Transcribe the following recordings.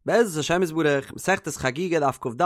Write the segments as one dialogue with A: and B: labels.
A: בעזרת השם יתברך, מסכת חגיגה דף כ"ד,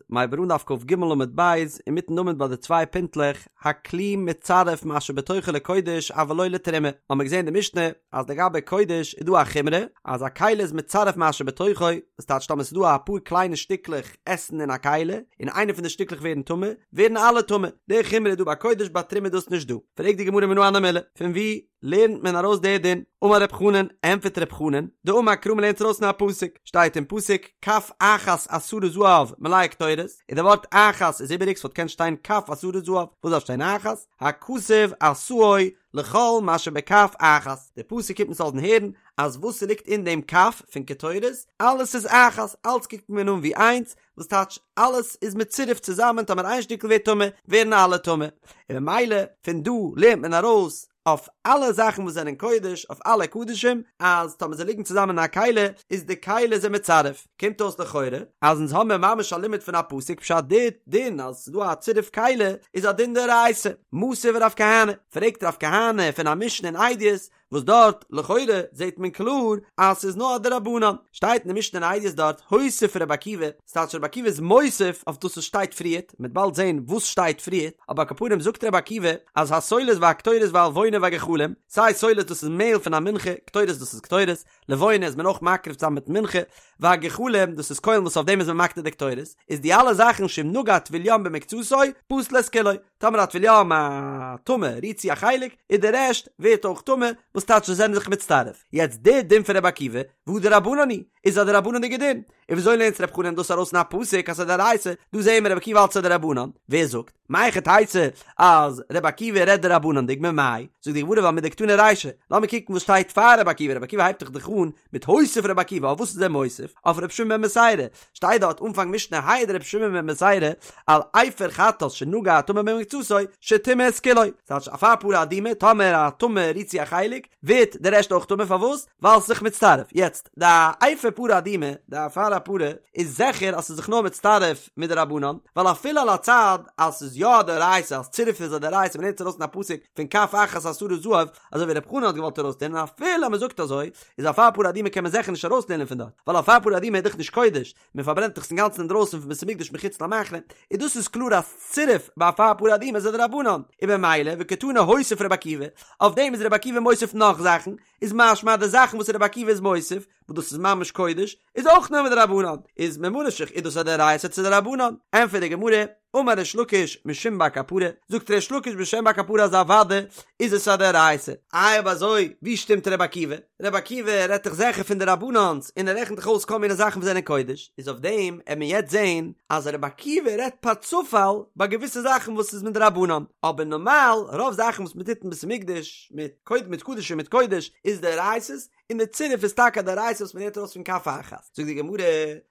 A: מ'הייבט אן דף כ"ג עמוד ב', אינמיטן עמוד ביי די צוויי פינטלעך, הכלי מצרף מה שבתוכו לקודש אבל לא לתרומה, האמיר געזען אין די משנה אז לגבי קודש איז דא א חומרא אז א כלי איז מצרף מה שבתוכו, דאס טייטש טאמער ס'איז דא אפאר קליינע שטיקלעך עסן אין א כלי, און איינע פון די שטיקלעך ווערן טמא, ווערן אלע טמא, די חומרא איז דא ביי קודש ביי תרומה איז דאס נישט דא. פרעגט די גמרא מנא הני מילי, פון וואו לערנט מען ארויס די דין? אמר רב חנן, ענטפערט רב חנן, דאמר קרא מ'לערנט ארויס פון א פסוק, שטייט אין פסוק, כף אחת עשרה זהב מלאה קטורת, און די ווארט אחת איז איבעריג ס'וואלט געקענט שטיין כף עשרה זהב, וואס דארף שטיין אחת? הכתוב עשאו לכל מה שבכף אחת, די פסוק קומט אונז לאזן הערן אז וואס ס'ליגט אין דעם כף פון קטורת, אלעס איז אחת, אלץ קוקט מען אן ווי איינס, וואס טייטש אלעס איז מצורף צוזאמען טאמער איין שטיקל ווערט טמא ווערן אלע טמא, און ממילא פון דא לערנט מען ארויס אויף אלע זאכן וואס זענען קודש אויף אלע קדשים אז טאמער זיי ליגן צוזאמען אין א כלי איז די כלי זיי מצרף, קומט אויס לכאורה אז אונז האמיר ממש א לימוד פון א פסוק פשט די דין אז ס'איז דא א צירוף כלי איז א דין דאורייתא, מתיב רב כהנא, פרעגט רב כהנא פון א משנה אין עדיות וואס דארט לכאורה זעט מען קלאר אז ס'איז נאר א דרבנן, שטייט אין די משנה אין עדיות דארט הוסיף רבי עקיבא, ס'טייטש רבי עקיבא איז מוסיף אויף דאס וואס שטייט פריערט, מ'וועט באלד זען וואס שטייט פריערט, אבער על כל פנים זאגט רבי עקיבא אז הסולת והקטורת והלבונה והגחלים, סיי סולת דאס איז מעהל פון א מנחה, קטורת דאס איז קטורת, לבונה איז מען אויך מקריב צוזאמען מיט מנחה, והגחלים דאס איז קוילן וואס אויף דעם איז מען מקטיר די קטורת, איז די אלע זאכן שאם נגע טבול יום במקצתו, פסל את כולו. טאמער א טבול יום א טמא רירט צו א חלק איז די רעשט ווערט אויך טמא וואס טייטש זיי זענען זיך מצטרף יעצט די דין פון רבי עקיבא והא דרבנן היא איז א דרבנן'דיגע דין און וויאזוי לערנט רב חנן דאס ארויס אין א פסוק אז ס'איז דאורייתא דא זעהן מיר רבי עקיבא האלט ס'איז דרבנן ווער זאגט מהיכי תיתי אז רבי עקיבא רעדט דרבנן'דיג ממאי זאגט די גמרא ווייל מדקתני רישא לאמיר קוקן וואס שטייט פאר רבי עקיבא רבי עקיבא הייבט דאך דאך אן מיט הוסיף רבי עקיבא אויף וואס איז ער מוסיף? אויף רבי שמעון בן בתירא, שטייט דארט אנפאנג משנה העיד רבי שמעון בן בתירא על אפר חטאת שנגע הטמא במקצתו שטימא את כולו, ס'טייטש אפר פרה אדומה, טאמער א טמא רירט צו א חלק, ווערט די רעשט אויך טמא, פארוואס? ווייל ס'איז זיך מצטרף, יעצט די אפר פרה אדומה, די אפר הפרה, איז זיכער אז ס'איז זיך נאר מצטרף מדרבנן, ווייל אפילו על הצד אז ס'איז יא א דאורייתא אז צירוף איז א דאורייתא מ'לערנט עס ארויס אין א פסוק פון כף אחת עשרה זהב, אזוי ווי רב חנן האט געוואלט ארויסלערנען אפילו אז מען זאגט אזוי, איז אפר פרה אדומה קען מען זיכער נישט ארויסלערנען פון דארט, ווייל אפר פרה אדומה איז דאך נישט קודש, מען פארברענט דאך עס אינגאנצן אינדרויסן פון בית המקדש מחוץ למחנה, און דאס איז קלאר אז צירוף ביי אפר פרה אדומה איז א דרבנן, און במילא וקתני הוסיף רבי עקיבא, אויף דעם איז רבי עקיבא מוסיף נאך זאכן, איז משמע אז די זאכן וואס רבי עקיבא איז מוסיף, וואס דאס איז ממש קודש, איז אויך נאר מדרבנן, איז ממה נפשך איז דאס א דאורייתא צו דרבנן? ענטפערט די גמרא, אמר ריש לקיש משום בר קפרא, זאגט ריש לקיש בשם בר קפרא אז אוודאי איז עס א דאורייתא. איי אויב אזוי ווי שטימט ר' עקיבא? ר' עקיבא רעדט דאך זיכער פון דרבנן'ס און ער רעכנט דאך אויס כל מיני זאכן וואס זענען קודש, איז אויף דעם עט מען יעצט זעהן אז ר' עקיבא רעדט פאר צופאל ביי געוויסע זאכן וואס איז מדרבנן, אבער נארמאל רוב זאכן וואס מען טוט אין בית המקדש מיט מיט קדשים מיט קודש איז דאורייתא'ס, און די צירוף איז טאקע א דאורייתא וואס מ'לערנט ארויס פון כף אחת. זאגט די גמרא,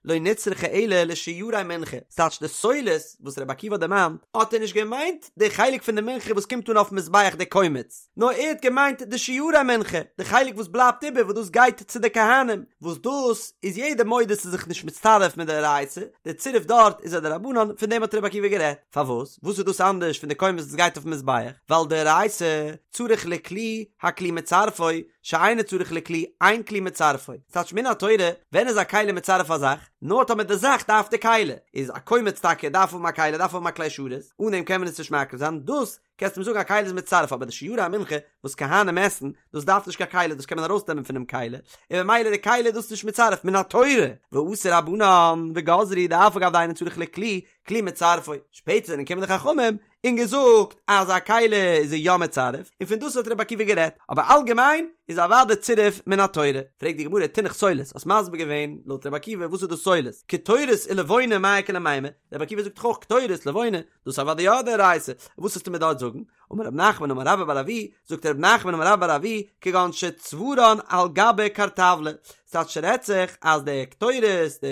A: לא נצרכה אלא לשיירי מנחה, ס'טייטש די סולת וואס רבי עקיבא האט דערמאנט, האט ער נישט געמיינט די חלק פון די מנחה וואס קומט אן אויפן מזבח די קומץ, נאר ער האט געמיינט די שיירי מנחה, די חלק וואס בלייבט איבער וואס דאס גייט צו די כהנים, וואס דאס איז יעדער מודה ס'איז זיך נישט מצטרף מדאורייתא, די צירוף דארט איז א דרבנן, פון דעם האט רבי עקיבא גערעדט. פארוואס? וואס איז דאס אנדערש פון די קומץ וואס גייט אויפן מזבח? ווייל דאורייתא צריך לכלי, הכלי מצרפו, שאינו צריך לכלי, אין כלי מצרפו. ס'טייטש מן התורה, ווען איז א כלי מצרף א זאך? נאר טאמער די זאך דארף די כלי. איז א קומץ טאקע דארף האבן א כלי, דארף האבן א כלי שרת, אן דעם קען מען עס נישט מקריב זיין, דאס קענסטו מיר זאגן א כלי איז מצרף, אבער די שיירי המנחה וואס כהנים עסן, דאס דארף נישט קיין כלי, דאס קען מען ארויסנעמען פונעם כלי, און ממילא די כלי איז דאס נישט מצרף מן התורה. ואתו רבנן וגזרו דאף על גב דאינו צריך לכלי, כלי מצרפו. שפעטער זענען געקומען די חכמים און געזאגט אז א כלי איז ער יא מצרף, און פון דאס האט רבי עקיבא גערעדט, אבער אלגעמיין איז אוודאי צירוף מן התורה. פרעגט די גמרא תינח סולת, האסט מסביר געווען לויט רבי עקיבא וואס איז דאס סולת, קטורת ולבונה מאי איכא למימר, רבי עקיבא זאגט דאך אויך קטורת לבונה, דאס איז אוודאי יא דאורייתא, וואס וועסטו מיר דארט זאגן? אמר רב נחמן אמר רבה בר אבוה, זאגט רב נחמן אמר רבה בר אבוה, כגון שצברן על גבי קרטבלא, ס'טייטש ס'רעדט זיך אז די קטורת, די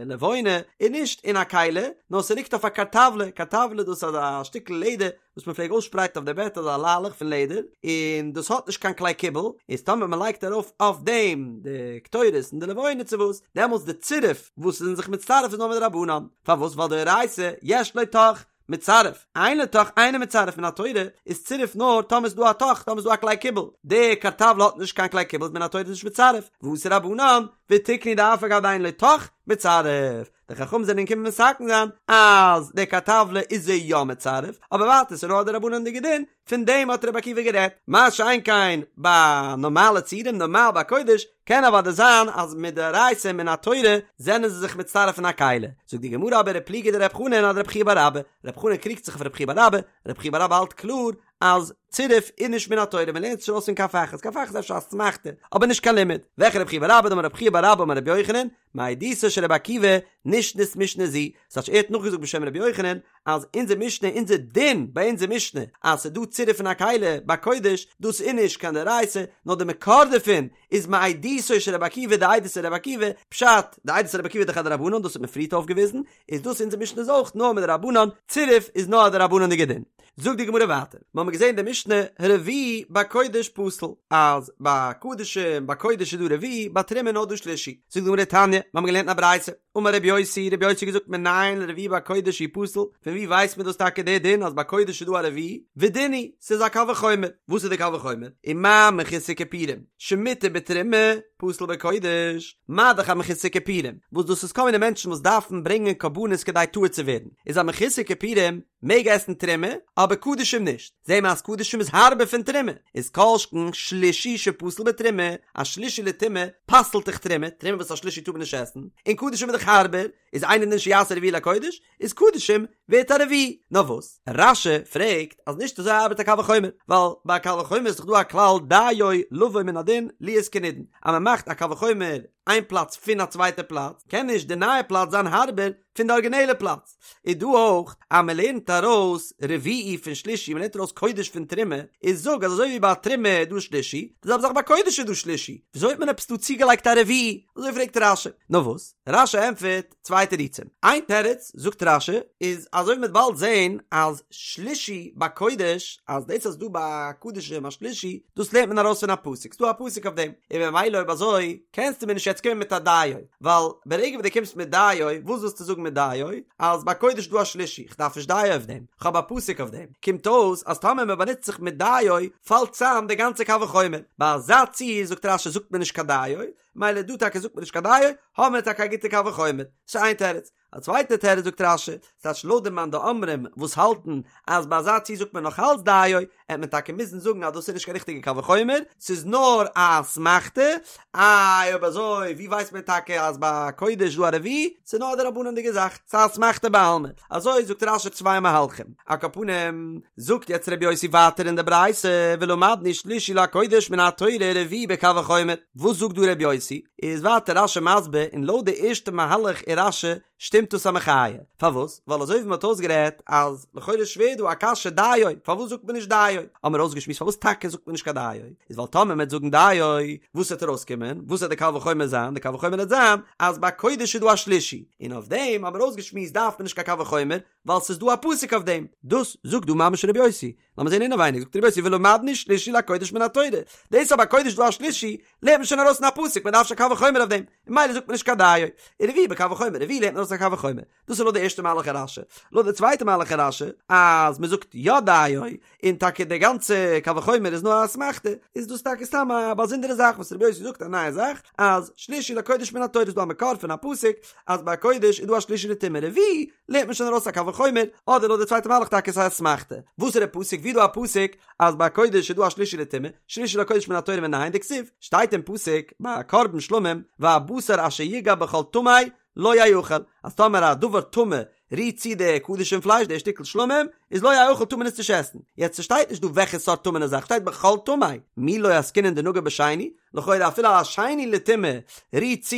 A: לבונה, איז נישט אין א כלי, נאר ס'ליגט אויף א קרטבלא, קרטבלא דאס איז אזא שטיקל לעדער וואס מ'פלעג אויסשפרייטן אויף די בעט אזא ליילעך פון לעדער, און דאס האט נישט קיין כלי קיבול, איז טאמער מ'לייגט ארויף אויף דעם די קטורת און די לבונה צו וואס, דעמאלטס די צירוף וואס איז זיך מצטרף איז נאר מדרבנן, פארוואס ווייל דאורייתא יש לו תוך, מצרף, אין לו תוך אינו מצרף מן התורה איז צירוף נאר טאמער איז דא א תוך טאמער איז דא א כלי קיבול, די קרטבלא האט נישט קיין כלי קיבול איז מן התורה נישט מצרף, ואתו רבנן. ותיקנו דאף על גב דאין לו תוך מצטרף, די חכמים זענען געקומען מתקן זיין אז די כרטבלא איז זי יא מצרף, אבער ווייטער ס'איז נאר א דרבנן'דיגע דין, פון דעם האט רבי עקיבא גערעדט, מה שאין כן ביי נארמאלע ציורים, נארמאל ביי קודש, קען אוודאי זיין אז מדאורייתא מן התורה זענען זיי זיך מצטרף אין א כלי, זאגט די גמרא אבער ופליגא דרב חנן אדרב חייא בר אבא, רב חנן קריגט זיך אויף רב חייא בר אבא, רב חייא בר אבא האלט קלאר אז צירוף איז נישט מן התורה, מען לערנט עס נישט ארויס פון כף אחת, כף אחת איז אפשר אסמכתא, אבער נישט קיין לימוד, וועלכע רב חייא בר אבא דאמר רב חייא בר אבא אמר רבי יוחנן, מעדותו של רבי עקיבא נשנית משנה זו, ס'טייטש ער האט נאכגעזאגט בשם רבי יוחנן אז אונזער משנה אונזער דין ביי אונזער משנה אז ס'איז דא צירוף פון א כלי ביי קודש דאס איז נישט קיין דאורייתא נאר די מקור דערפון איז מעדותו של רבי עקיבא די עדות פון רבי עקיבא, פשט, די עדות פון רבי עקיבא איז דאך א דרבנן דאס האט מען פריערט אויפגעוויזן, איז דאס אונזער משנה איז אויך נאר מדרבנן, צירוף איז נאר א דרבנן'דיגע דין. זאגט די גמרא ווייטער, מיר האבן געזען די משנה רביעי בקודש פסול, אז ביי קדשים ביי קודש איז דא רביעי, ביי תרומה איז נאר דא שלישי. זאגט די גמרא תניא, מיר האבן געלערנט אין א ברייתא, אמר רבי יוסי, רבי יוסי האט געזאגט מנין לרביעי בקודש שהוא פסול, פון ווי ווייסט מען דאס טאקע די דין אז ביי קודש איז דא א רביעי? ודין הוא, ס'איז א קל וחומר. וואס איז די קל וחומר? ומה מחוסר כיפורים, שמותר בתרומה, פסול בקודש, מה דאך א מחוסר כיפורים, וואס דאס איז כל מיני מענטשן וואס דארפן ברענגען קרבנות כדי טהור צו ווערן, איז א מחוסר כיפורים מעג עסן תרומה, אבער קדשים נישט, זעהן מיר אז קדשים איז הארבער פון תרומה, איז כל שכן שלישי שפסול בתרומה, א שלישי לטומאה פסל'ט דאך תרומה, תרומה וואס א שלישי טאר מען נישט עסן, און קדשים איז דאך הארבער, איז אינו דין שיעשה רביעי לקודש, איז קדשים ווערט א רביעי. נאר וואס? רש"י פרעגט אז נישט אזוי ארבעט א קל וחומר, ווייל ביי א קל וחומר איז דאך דא א כלל דיו לבוא מן הדין להיות כנידון, אז מען מאכט א קל וחומר איין פלאץ פון א צווייטע פלאץ, קען נישט די נייע פלאץ זיין הארבער פון די ארגינעלע פלאץ. איז דא אויך אז מען לערנט ארויס רביעי פון שלישי, מען לערנט ארויס קודש פון תרומה, איז זאג אז אזוי ווי ביי תרומה איז דא שלישי, די זעלבע זאך ביי קודש איז דא שלישי, וויאזוי האט מען עפעס דא צוגעלייגט א רביעי? אזוי פרעגט רש"י. נאר וואס? רש"י ענטפערט צוויי תירוצים. איין תירוץ, זאגט רש"י, איז אזוי ווי מ'וועט באלד זען אז שלישי ביי קודש, אז דאס אז ס'דא ביי קדשים א שלישי, דאס לערנט מען ארויס פון א פסוק, ס'דא א פסוק אויף דעם, און ממילא אויב אזוי קענסטו מיר נישט יעצט קומען מיט א דיו, ווייל ברגע וואס דו קומסט מיט דיו, וואס ווילסטו זאגן מיט דיו? אז ביי קודש איז דא א שלישי, כ'דארף נישט דיו אויף דעם, כ'האב א פסוק אויף דעם. קומט אויס אז טאמער מ'באנוצט זיך מיט דיו, פאלט צאם די גאנצע קל וחומר. ביי אזא ציור זאגט רש"י זאגט מען נישט קיין דיו, מילא דא טאקע זאגט מען נישט קיין דיו, האבן מיר טאקע א גוטע קל וחומר. ס'איז איין תירוץ. א צווייטע תירוץ זאגט רש"י, ס'טייטש לויט די מאן דאמרים וואס האלטן אז ביי אזא ציור זאגט מען נאך אלץ דיו, עט מען טאקע מוזן זאגן אז דאס איז נישט קיין ריכטיגע קל וחומר, ס'איז נאר א אסמכתא, איי אויב אזוי ווי ווייסט מען טאקע אז ביי קודש איז דא א רביעי, ס'איז נאר א דרבנן'דיגע זאך, ס'איז א אסמכתא בעלמא, אזוי זאגט רש"י צוויי מהלכים. על כל פנים, זאגט יעצט רבי יוסי ווייטער אין די ברייתא, ולמדנו שלישי לקודש מן התורה רביעי בקל וחומר, וואס זאגט דא רבי יוסי? איז ווייטער רש"י מסביר, און לויט די ערשטע מהלך אין רש"י שטימט דאס א מחיה, פארוואס? ווייל אזוי ווי מען האט אויסגערעדט אז לכאורה איז שווער דא א קשיא דיו, פארוואס זאגט מען נישט דיו? האבן מיר אויסגעשמועסט פארוואס טאקע זאגט מען נישט קיין דיו, איז ווייל טאמער מען וועט זאגן דיו, וואס וועט ארויסקומען? וואס וועט די קל וחומר זיין? די קל וחומר וועט זיין אז ביי קודש איז דא א שלישי, און אויף דעם האבן מיר אויסגעשמועסט דארף מען נישט קיין קל וחומר, ווייל ס'איז דא א פסוק אויף דעם, דאס זאגט דא ממש רבי יוסי, לאמיר זען אינעווייניג, זאגט רבי יוסי ולמדנו שלישי לקודש מן התורה, דאס אז ביי קודש איז דא א שלישי, לערנט מען שוין ארויס אין א פסוק, מען דארף נישט קיין קל וחומר אויף דעם, און ממילא זאגט מען נישט קיין דיו, און רביעי בקל וחומר, רביעי לערנט מען ארויס א קל וחומר, דאס איז לויט די ערשטע מהלך אין רש"י, לויט די צווייטע מהלך אין רש"י, אז מען זאגט יא דיו, און טאקע די גאנצע קל וחומר איז נאר א אסמכתא, איז דאס טאקע סתם א באזונדערע זאך וואס רבי יוסי זאגט א נייע זאך, אז שלישי לקודש מן התורה איז דא א מקור פון א פסוק אז ביי קודש איז דא א שלישי לטומאה רביעי, לערנט מען שוין ארויס א קל וחומר, אדער לויט די צווייטע מהלך טאקע ס'איז א אסמכתא. וואס איז די פסוק? ווי איז דא א פסוק אז ביי קודש איז דא א שלישי לטומאה, שלישי לקודש מן התורה מנין דכתיב, שטייט אין פסוק ביי קרבן שלמים והבשר אשר יגע בכל טמא לא יאכל, אז טאמער א דבר טמא רירט צו די קדשים פלייש די שטיקל שלמים איז לא יאכל טאר מען עס נישט עסן, יעצט ס'שטייט נישט דא וועלכע סארט טמא'נע זאך, שטייט בכל טמא, מי לא עסקינן דנגע בשני, לכאורה אפילו א שני לטומאה רירט צו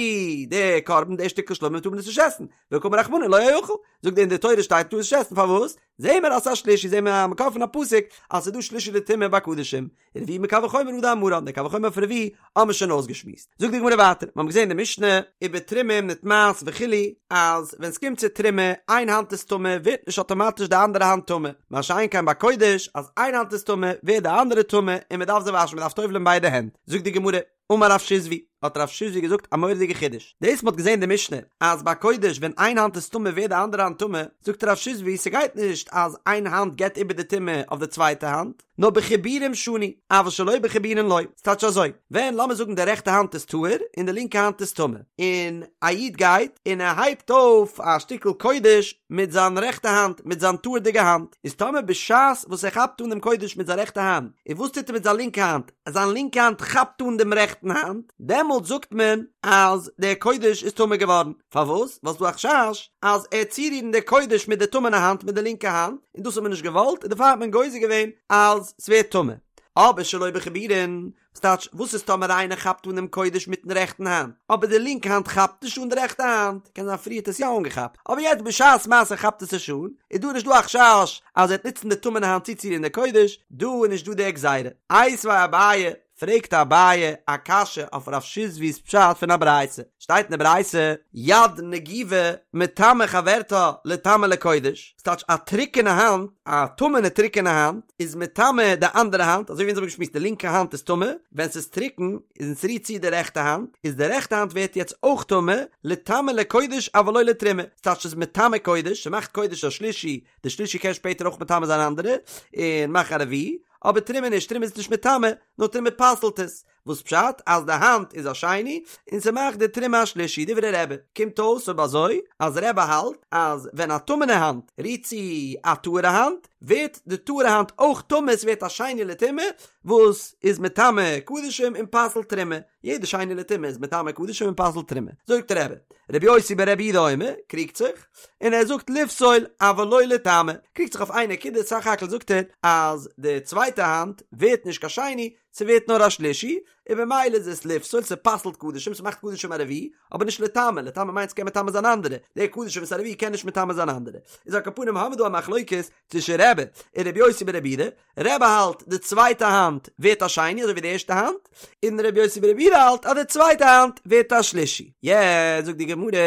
A: די קרבן די שטיקל שלמים טאר מען עס נישט עסן, וקאמר רחמנא לא יאכל, זאגט אין די תורה שטייט טאר עס נישט עסן פארוואס? זעהן מיר אז ס'איז א שלישי זעהן מיר א מקור פון א פסוק אז ס'איז דא שלישי לטומאה ביי קדשים, רביעי מקל וחומר הא דאמרן, די קל וחומר פון רביעי האבן מיר שוין אויסגעשמועסט. זאגט די גמרא ווייטער, מיר האבן געזעהן אין די משנה ובתרומה אם נטמאת וכו' אז ווען ס'קומט צו תרומה איין האנט איז טמא ווערט נישט אטאמאטיש די אנדערע האנט טמא, מה שאין כן ביי קודש אז איין האנט איז טמא ווערט די אנדערע טמא און מ'דארף זיי וואשן מ'דארף טובל'ען ביידע הענט, זאגט די גמרא, אמר רב שיזבי. האט רב שיזבי געזאגט א מורא'דיגע חידוש, דאס מ'האט געזען די משנה אז ביי קודש ווען איין האנט איז טמא ווערט די אנדערע האנט טמא, זאגט רב שיזבי ס'גייט נישט אז איין האנט געבט איבער די טומאה אויף די צווייטע האנט, נאר בחיבורים שנו, אבל שלא בחיבורין לא, ס'טייטש אזוי, ווען לאמיר זאגן די רעכטע האנט איז טהור און די לינקע האנט איז טמא, און א איד גייט און ער הייבט אויף א שטיקל קודש מיט זיין רעכטע האנט, מיט זיין טהור'דיגע האנט, איז טאמער בשעת וואס ער כאפט אן דעם קודש מיט זיין רעכטע האנט, און וואס טוט ער מיט זיין לינקע האנט? זיין לינקע האנט כאפט אן דעם רעכטן האנט, דעמאלט זאגט מען אז דער קודש איז טמא געווארן. פארוואס? ווייל ס'דא א חשש אז ער וועט צורירן די קודש מיט די טמא'נע האנט מיט די לינקע האנט, און דאס האט מען נישט געוואלט, און דערפאר האט מען גוזר געווען אז ס'ווערט טמא. אבער שלא בחיבורין, ס'טייטש, וואס איז טאמער איינער כאפט אן דעם קודש מיטן רעכטן האנט, אבער די לינקע האנט כאפט נישט אן די רעכטע האנט, קען זיין פריער האט עס יא אנגעכאפט, אבער יעצט בשעת מעשה כאפט עס נישט אן, איז דא נישט דא א חשש אז ער וועט נוצן די טמא'נע האנט צוצורירן די קודש, דא איז נישט דא די גזירה. איתיביה אביי, פרעגט אביי א קשיא אויף רב שיזבי'ס פשט פון א ברייתא, שטייט אין די ברייתא, יד נגובה מטמאה חברתה לטמא לקודש, ס'טייטש א טרוקענע האנט, א טמא'נע טרוקענע האנט, איז מטמא די אנדערע האנט, אזוי ווי אונז האבן געשמועסט די לינקע האנט איז טמא, ווען ס'איז טרוקן און ס'רירט צו די רעכטע האנט, איז די רעכטע האנט ווערט יעצט אויך טמא, לטמא לקודש אבל לא לתרומה, ס'טייטש ס'איז מטמא קודש, ס'מאכט קודש א שלישי, די שלישי קען שפעטער אויך מטמא זיין אנדערע, און מאכן א רביעי, אבער תרומה נישט, תרומה איז נישט מטמא, נאר תרומה פסל'ט עס, וואס פשט אז די האנט איז א שני און ס'מאכט די תרומה א שלישי, דברי רבי, קומט אויס אויב אזוי אז רבי האלט אז ווען א טמא'נע האנט רירט צו א טהור'ע האנט, ווערט די טהור'ע האנט אויך טמא, ס'ווערט א שני לטומאה וואס איז מטמא קדשים און פסל'ט תרומה, יעדע שני לטומאה איז מטמא קדשים און פסל'ט תרומה, זאגט רבי, רבי יוסי ברבי יהודה אומר, קריגט זיך, און ער זאגט לפסול אבל לא לטמא, קריגט זיך אויף איין נקודה, סך הכל זאגט ער אז די צווייטע האנט ווערט נישט קיין שני, ס'ווערט נאר א שלישי, און במילא איז עס לפסול, ס'פסל'ט קדשים, ס'מאכט קדשים א רביעי, אבער נישט לטמא, לטמא מיינט ס'קען מטמא זיין אנדערע, די קדשים וואס א רביעי קען נישט מטמא זיין אנדערע. איז על כל פנים האמיר דא א מחלוקת צווישן רבי און רבי יוסי ברבי יהודה, רבי האלט די צווייטע האנט ווערט א שני אזוי ווי די ערשטע האנט, און רבי יוסי ברבי יהודה האלט אז די צווייטע האנט ווערט א שלישי. יעצט זאגט די גמרא,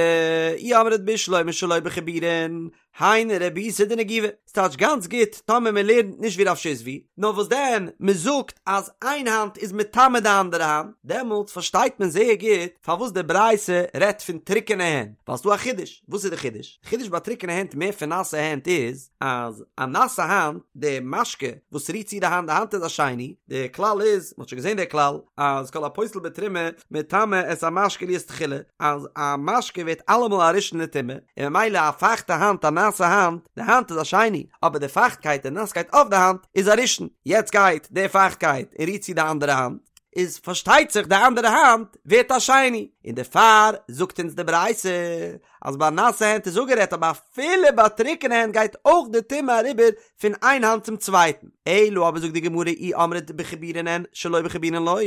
A: אי אמרת בשלמא שלא בחיבורין, היינו רבותא דנגובה, ס'טייטש גאנץ גוט טאמער מען לערנט נישט ווי רב שיזבי, נאר וואס דען מען זאגט אז איין האנט איז מטמא די אנדערע האנט, דעמאלטס פארשטייט מען זייער גוט פארוואס די ברייתא רעדט פון טרוקענע הענט, ווייל ס'דא א חידוש, וואס איז די חידוש? די חידוש ביי טרוקענע הענט מער פון נאסע הענט איז, אז א נאסע האנט, די משקה וואס רירט צו די האנט, די האנט איז א שני, די כלל איז, מ'האט שוין געזען די כלל, אז כל הפוסל בתרומה מטמא את המשקה להיות תחילה, אז א משקה ווערט אלעמאל א ראשון לטומאה, און ממילא א פייכטע האנט, א נאסע האנט, די האנט איז א שני, אבער די פייכטקייט, די נאסקייט אויף די האנט, איז א ראשון, יעצט גייט די פייכטקייט און רירט צו די אנדערע האנט, איז פארשטייט זיך די אנדערע האנט ווערט א שני, און דערפאר זאגט אונז די ברייתא אז ביי נאסע הענט איז אפגערעדט אבער אפילו ביי טרוקענע הענט גייט אויך די טומאה אריבער פון איין האנט צום צווייטן. אלא אבער זאגט די גמרא אי אמרת בחיבורין אין שלא בחיבורין לא,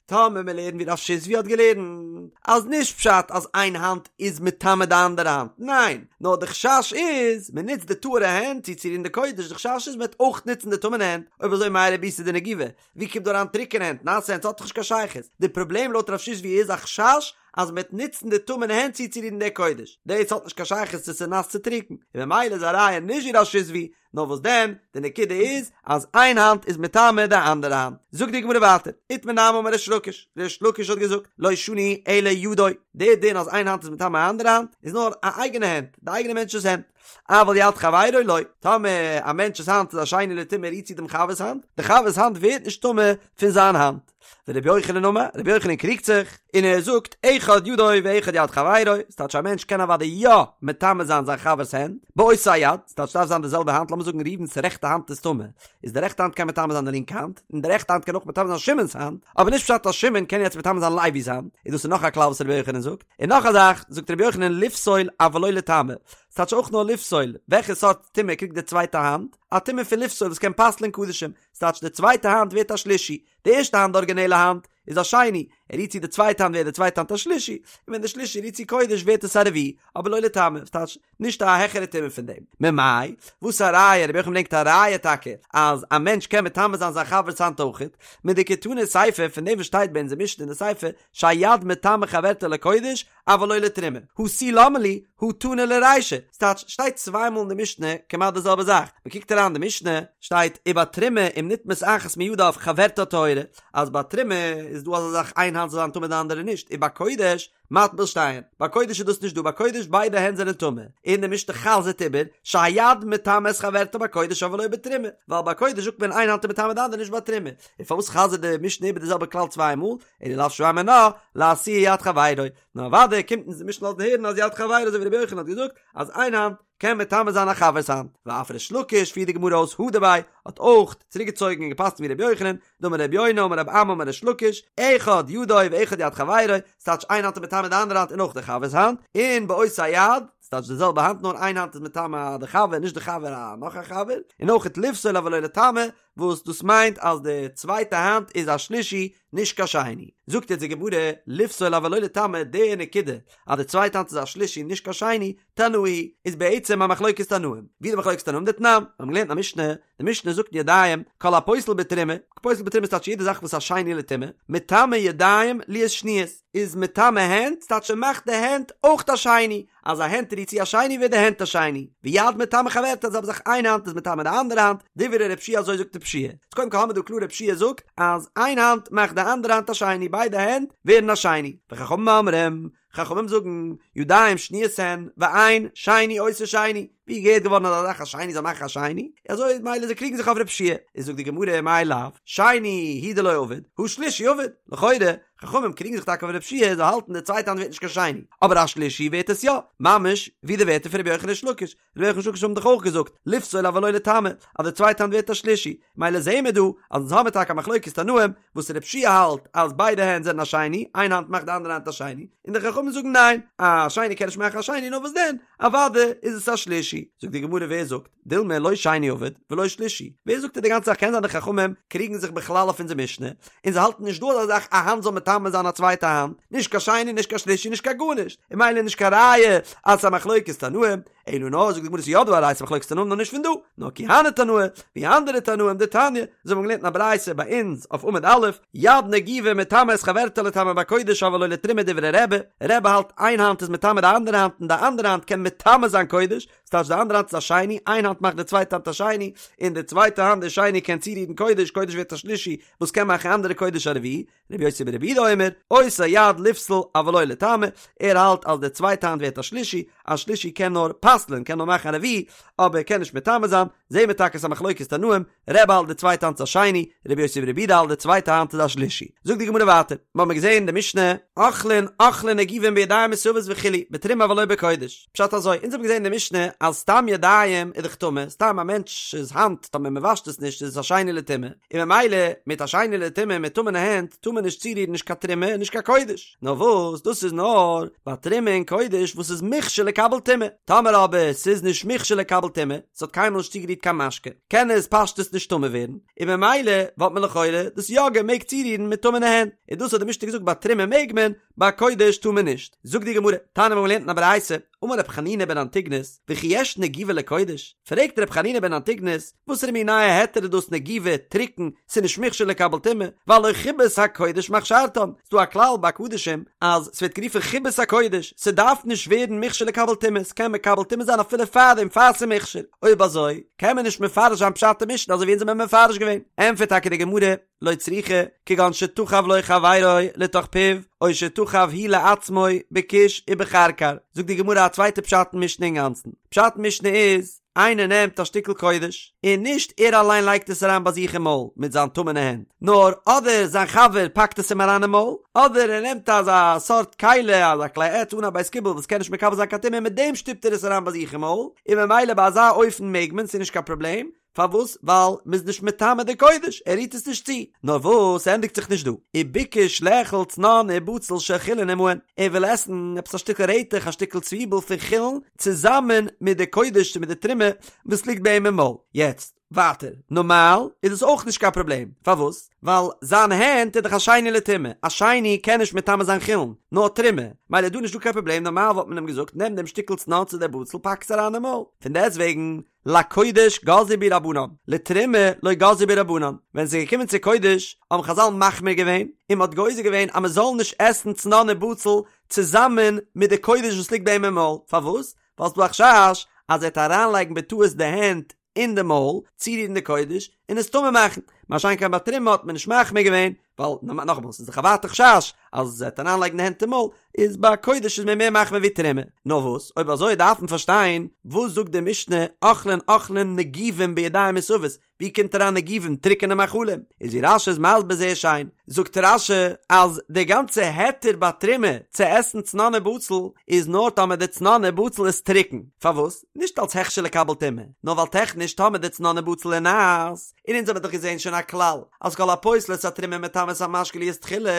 A: טאמער מיר לערנען ווי רב שיזבי האט געלערנט אז נישט פשט אז איין האנט איז מטמא די אנדערע האנט, ניין, נאר די חשש איז מען נוצט די טהור'ע הענט צו צורירן די קודש, די חשש איז מען וועט אויך נוצן די טמא'נע הענט, אויב אזוי מאי רבותא דנגובה, ווי קומט דא אריין טרוקענע הענט, נאסע הענט, ס'האט דאך נישט קיין שייכות, די פראבלעם לויט רב שיזבי איז א חשש אז מ'וועט נוצן די טמא'נע הענט צוצורירן די קודש, דאס האט נישט קיין שייכות צו ס'איז נאס צו טרוקן, און ממילא איז א ראיה נישט ווי רב שיזבי, נאר וואס דען, די נקודה איז אז איין האנט איז מטמא די אנדערע האנט. זאגט די גמרא ווייטער, איתמר נמי אמר ריש לקיש, ריש לקיש האט געזאגט, לא שנו אלא ידו, די דין אז איין האנט איז מטמא א אנדערע האנט, איז נאר א אייגענע הענט, די אייגענע מענטש'ס הענט, אבל יד חברו לא, טאמער א מענטש'ס האנט איז א שני לטומאה רירט צו דעם חבר'ס האנט, די חבר'ס האנט ווערט נישט טמא פון זיין האנט. ורבי יוחנן אמר, רבי יוחנן קריגט זיך, און ער זאגט, אחד ידו ואחד יד חברו, ס'טייטש א מענטש קען אוודאי יא מטמא זיין זיין חבר'ס הענט, באותה יד, ס'טייטש ס'דארף זיין די זעלבע האנט, לאמיר זאגן ראובן'ס רעכטע האנט איז טמא, איז די רעכטע האנט קען מטמא זיין די לינקע האנט, און די רעכטע האנט קען אויך מטמא זיין שמעון'ס האנט, אבער נישט פשט אז שמעון קען יעצט מטמא זיין לוי'ס האנט, און דאס איז נאך א כלל וואס רבי יוחנן זאגט. און נאך א זאך, זאגט רבי יוחנן לפסול אבל לא לטמא, ס'טייטש אויך נאר לפסול, וועלכע סארט טומאה קריגט די צווייטע האנט? א טומאה פון לפסול וואס קען פסל'ען קדשים, ס'טייטש די צווייטע האנט ווערט א שלישי, די ערשטע האנט די ארגינעלע האנט איז א שני, ער רירט צו די צווייטע האנט ווערט די צווייטע האנט א שלישי, און ווען די שלישי רירט צו קודש ווערט עס א רביעי, אבער לא לטמא, ס'טייטש נישט א העכערע טומאה פון דעם. ממאי? וואס א ראיה? רבי יוחנן ברענגט א ראיה טאקע אז א מענטש קען מטמא זיין זיין חבר'ס האנט אויכעט, מדקתני סיפא פון דעם וואס שטייט ביי אונזער משנה אין די סיפא שהיד מטמאה חברתה לקודש אבל לא לתרומה, הא תו למה לי, הא תנא לרישא, ס'טייטש, שטייט צוויי מאל אין די משנה כמעט די זעלבע זאך, מ'קוקט אריין אין די משנה, שטייט ובתרומה אם נטמאת אחת מידיו חברתה טהורה, אז ביי תרומה איז. איז דא אזא זאך איין האנט זאל זיין טמא די אנדערע נישט, ובקודש מטביל שתיהן, ביי קודש איז דאס נישט דא, ביי קודש ביידע הענט זענען טמא, און די משנה חזר'ט איבער, שהיד מטמא את חברתה בקודש אבל לא בתרומה, ווייל ביי קודש זאגט מען איין האנט איז מטמא די אנדערע נישט ביי תרומה, און פארוואס חזר'ט די משנה איבער די זעלבע כלל צוויי מאל, אלא לאו שמע מינה, לאתויי יד חברו, נאר אוודאי קומט אונז די משנה לאזן הערן אז יד חברו אזוי ווי רבי יוחנן האט געזאגט אז איין האנט קען מטמא זיין א חבר'ס האנט, ואף ריש לקיש פירט די גמרא אויס הדר ביה האט אויך צוריק געצויגן און געפסקנט ווי רבי יוחנן, דאמר רבי יונה אמר רבי אמי אמר ריש לקיש, אחד ידו ואחד יד חברו, ס'טייטש איין האנט איז מטמא די אנדערע האנט און אויך די חבר'ס האנט, און באותה יד, ס'טייטש די זעלבע האנט נאר איין האנט איז מטמא די חבר נישט די חבר א נאך א חבר, און אויך לפסול אבל לא לטמא, וואס דאס מיינט אז די צווייטע האנט איז א שלישי נישט קיין שני. זאגט יעצט די גמרא, לפסול אבל לא לטמא, די נקודה אז די צווייטע האנט איז א שלישי נישט קיין שני, תנאי, איז בעצם א מחלוקת תנאים. ווי די מחלוקת תנאים דתנן, מיר האבן געלערנט אין א משנה, די משנה זאגט אין ידיים, כל הפוסל בתרומה, פוסל בתרומה איז טייטש יעדע זאך וואס איז א שני לטומאה, מטמא ידיים להיות שניות, איז מטמא הענט, ס'טייטש ער מאכט די הענט אויך א שני, אז א הענט רירט צו א שני ווערט די הענט א שני, ויד מטמא חברתה זעלבע זאך איין האנט איז מטמא די אנדערע האנט, דברי רבי יהושע אזוי זאגט רבי יהושע איז קודם כל האמיר דא קלאר רבי יהושע זאגט אז איין האנט מאכט די אנדערע האנט א שני ביידע הענט ווערן א שני, וחכמים אומרים, חכמים זאגן, ידיים שניות הן, ואין שני עושה שני, ווי איז געהערט געווארן אזא זאך א שני זאל מאכן א שני, אזוי מילא זיי קריגן זיך אויף רבי יהושע איז זאגט די גמרא מאי לאו, שני הוא דלא עביד, הא שלישי עביד, לכאורה, חכמים קריגן זיך טאקע אויף רבי יהושע זיי האלטן די צווייטע האנט ווערט נישט קיין שני, אבער א שלישי ווערט עס יא, ממש ווי די ווערטער פון רבי יוחנן ריש לקיש, רבי יוחנן ריש לקיש האבן דאך אויך געזאגט, לפסול אבל לא לטמא, אז די צווייטע האנט ווערט א שלישי, מילא זעהן מיר דא אז אונז האמיר טאקע א מחלוקת תנאים, וואס רבי יהושע האלט אז ביידע הענט זענען א שני, איין האנט מאכט די אנדערע האנט א שני, און די חכמים זאגן ניין, א שני קען נישט מאכן א שני, נאר וואס דען, אוודאי איז עס א שלישי. זאגט די גמרא ווער זאגט, דילמא לא שני עביד ולא שלישי, ווער זאגט די גאנצע זאך קען זיין די חכמים קריגן זיך בכלל אויף אונזער משנה, און זיי האלטן נישט דא אזא זאך א האנט זאל מטמא זיין א צווייטע האנט, נישט קיין שני נישט קיין שלישי נישט קיין גארנישט, און מילא נישט קיין ראיה אז ס'איז א מחלוקת תנאים, אלא נאר זאגט די גמרא ס'איז יא דא א ראיה ס'איז מחלוקת תנאים נאר נישט פון דא, נאר כי הני תנאי, ווי אנדערע תנאים דתניא, אזוי ווי מ'האט געלערנט אין א ברייתא ביי אונז אויף עמוד א', יד נגובה מטמא את חברתה לטמא בקודש אבל לא לתרומה דברי רבי, רבי האלט איין האנט איז מטמא די אנדערע האנט און די אנדערע האנט קען מטמא זיין קודש, ס'טייטש די אנדערע האנט איז א שני, איין האנט מאכט די צווייטע האנט א שני, און די צווייטע האנט די שני קען צורירן קודש, קודש ווערט א שלישי וואס קען מאכן אנדערע קודש א רביעי, רבי יוסי ברבי יהודה אומר, אותה יד לפסול אבל לא לטמא, ער האלט אז די צווייטע האנט ווערט א שלישי, א שלישי קען נאר פסל'ען, קען נאר מאכן א רביעי, אבער קען נישט מטמא זיין, זעהן מיר טאקע ס'איז א מחלוקת תנאים, רבי האלט די צווייטע האנט איז א שני, רבי יוסי ברבי יהודה האלט די צווייטע האנט איז א שלישי. זאגט די גמרא ווייטער, מיר האבן געזעהן אין די משנה, אוכלין אוכלין נגובין בידיים מסואבות וכו', בתרומה אבל לא בקודש. פשט אזוי, אונז האבן געזעהן אין די משנה אז סתם ידיים איז דאך טמא, סתם א מענטש'ס האנט טאמער מען וואשט עס נישט איז עס א שני לטומאה, און ממילא מיט א שני לטומאה מיט טמא'נע הענט טאר מען נישט צורירן נישט קיין תרומה און נישט קיין קודש. נאר וואס דאס איז נאר ביי תרומה און קודש וואס איז מוכשר לקבל טומאה, טאמער אבער ס'איז נישט מוכשר לקבל טומאה, ס'האט קיינמאל נישט צוגערירט קיין משקה, קען עס פשטות נישט טמא ווערן, און ממילא וואלט מען לכאורה דאס יא געמעגט צורירן מיט טמא'נע הענט, און דאס האט די משנה געזאגט ביי תרומה מעג מען, ביי קודש טאר מען נישט. זאגט די גמרא, תניא מיר האבן געלערנט אין א ברייתא, אמר ר' חנינא בן אנטיגנוס, וכי יש נגובה לקודש? פרעגט ר' חנינא בן אנטיגנוס, וואסערע מין נייע היתר איז דאס נגובה, טרוקן, ס'איז נישט מוכשר לקבל טומאה, והלא חיבת הקודש מכשרתן, ס'דא א כלל ביי קדשים אז ס'ווערט גערופן חיבת הקודש, ס'דארף נישט ווערן מוכשר לקבל טומאה, ס'קען מקבל טומאה זיין אפילו פארדעם פאר ס'איז מוכשר, אויב אזוי קען מען נישט מפרש זיין פשט אין משנה אזוי ווי אונז האבן מפרש געווען, ענטפערט טאקע די גמרא, לא צריכא, כגון שתחב לו חברו לתוך פיו, או שתחב הוא לעצמו בכוש ובכרכר, זאגט די גמרא א צווייטע פשט אין משנה אינגאנצן, פשט אין משנה איז, איינער נעמט א שטיקל קודש, און נישט ער אליין לייגט עס אריין ביי זיך אין מויל מיט זיין טמא'נע הענט, נאר אדער זיין חבר פאקט עס אים אריין אין מויל, אדער ער נעמט אזא סארט כלי, אזא כלי עץ אן א בית קיבול וואס קען נישט מקבל זיין קיין טומאה און מיט דעם שטופט ער עס אריין ביי זיך אין מויל, און ממילא ביי אזא אופן מעג מען, ס'איז נישט קיין פראבלעם, פארוואס? ווייל מ'איז נישט מטמא די קודש, ער רירט עס נישט צו. נאר וואס, ס'ענדיגט זיך נישט דא. וביקש לאכול צנון ובצל של חולין עמהן, ער וויל עסן עפעס א שטיקל רעטעך, א שטיקל צוויבל פון חולין, צוזאמען מיט די קודש, מיט די תרומה וואס ליגט ביי אים אין מויל. יעצט, ווייטער, נארמאל איז עס אויך נישט קיין פראבלעם. פארוואס? ווייל זיין הענט איז דאך א שני לטומאה, א שני קען נישט מטמא זיין חולין, נאר תרומה, מילא איז דא נישטא קיין פראבלעם, נארמאל וואלט מען אים געזאגט, נעם דעם שטיקל צנון צו דער בצל, פאק עס אריין אין מויל. פון דעסטוועגן, לקודש גזרו בהו רבנן, לתרומה לא גזרו בהו רבנן, ווען ס'איז געקומען צו קודש האבן חזל מחמיר געווען און מ'האט גוזר געווען אז מ'זאל נישט עסן צנון און בצל צוזאמען מיט די קודש וואס ליגט ביי אים אין מויל, פארוואס? ווייל ס'דא א חשש אז ער וועט אריינלייגן בטעות די הענט אין די מויל, צורירן די קודש, און עס טמא מאכן, מה שאין כן ביי תרומה האט מען נישט מחמיר געווען, ווייל נאכאמאל ס'איז דאך א ווייטע חשש אז ער וועט אריינלייגן די הענט אין מויל, איז ביי קודש איז מען מער מחמיר ווי תרומה. נאר וואס, אויב אזוי דארף מען פארשטיין, וואס זאגט די משנה אוכלין אוכלים נגובים בידיים מסובות, ווי קומט אריין נגובים טרוקענע מאכלים? איז ווי רש"י איז מסביר זייער שיין, זאגט רש"י אז די גאנצע היתר ביי תרומה צו עסן צנון ובצל איז נאר טאמער די צנון ובצל איז טרוקן, פארוואס? נישט אלס הכשר לקבל טומאה, נאר ווייל טעכניש טאמער די צנון ובצל איז נאס, און אונז האבן דאך געזען שוין א כלל אז כל הפוסל את התרומה מטמא את המשקה להיות תחילה,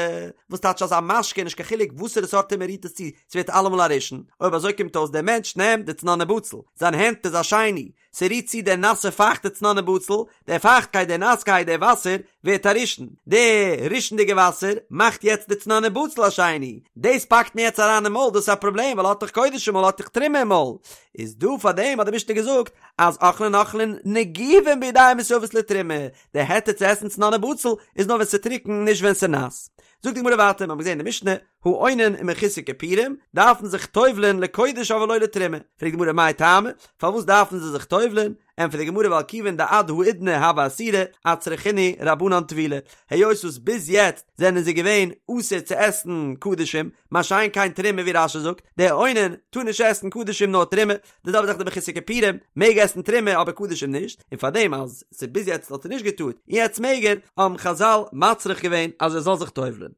A: וואס טייטש אז א משקה נישט קיין חילוק וואסערע סארט טומאה רירט עס צו, ס'ווערט אלעמאל א ראשון, אויב אזוי קומט אויס דער מענטש נעמט די צנון ובצל, זיין הענט איז א שני, ס'רירט צו דער נאסע פייכטע צנון ובצל, דער פייכטקייט דער נאסקייט דער וואסער ווערט א ראשון, די ראשונ'דיגע וואסער מאכט יעצט די צנון ובצל א שני, דאס פאקט מען יעצט אריין אין מויל דאס איז א פראבלעם ווייל האט דאך קודש אין מויל האט דאך תרומה אין מויל, איז דא פאר דעם האט די משנה געזאגט אז אוכלין אוכלין נגובין בידיים מסואבות לתרומה, די היתר צו עסן צנון ובצל איז נאר ווען ס'איז טרוקן נישט ווען ס'איז נאס. זאגט די גמרא ווייטער, מיר האבן געזען אין די משנה, האונן ומחוסר כיפורים דארפן זיך טובל'ען לקודש אבל לא לתרומה, פרעגט די גמרא מאי טעמא, פארוואס דארפן זיי זיך טובל'ען, ענטפערט די גמרא ווייל כיוון דעד האידנא הוו אסירי אצרכינהו רבנן טבילה, היות וואס ביז יעצט זענען זיי געווען אסור צו עסן קדשים, מה שאין כן תרומה ווי רש"י זאגט, דער אונן טאר נישט עסן קדשים נאר תרומה, די זעלבע זאך די מחוסר כיפורים מעג עסן תרומה אבער קדשים נישט, און פארדעם אז ס'ביז יעצט האט ער נישט געטארט און יעצט מעג ער, האבן חז"ל מצריך געווען אז ער זאל זיך טובל'ען.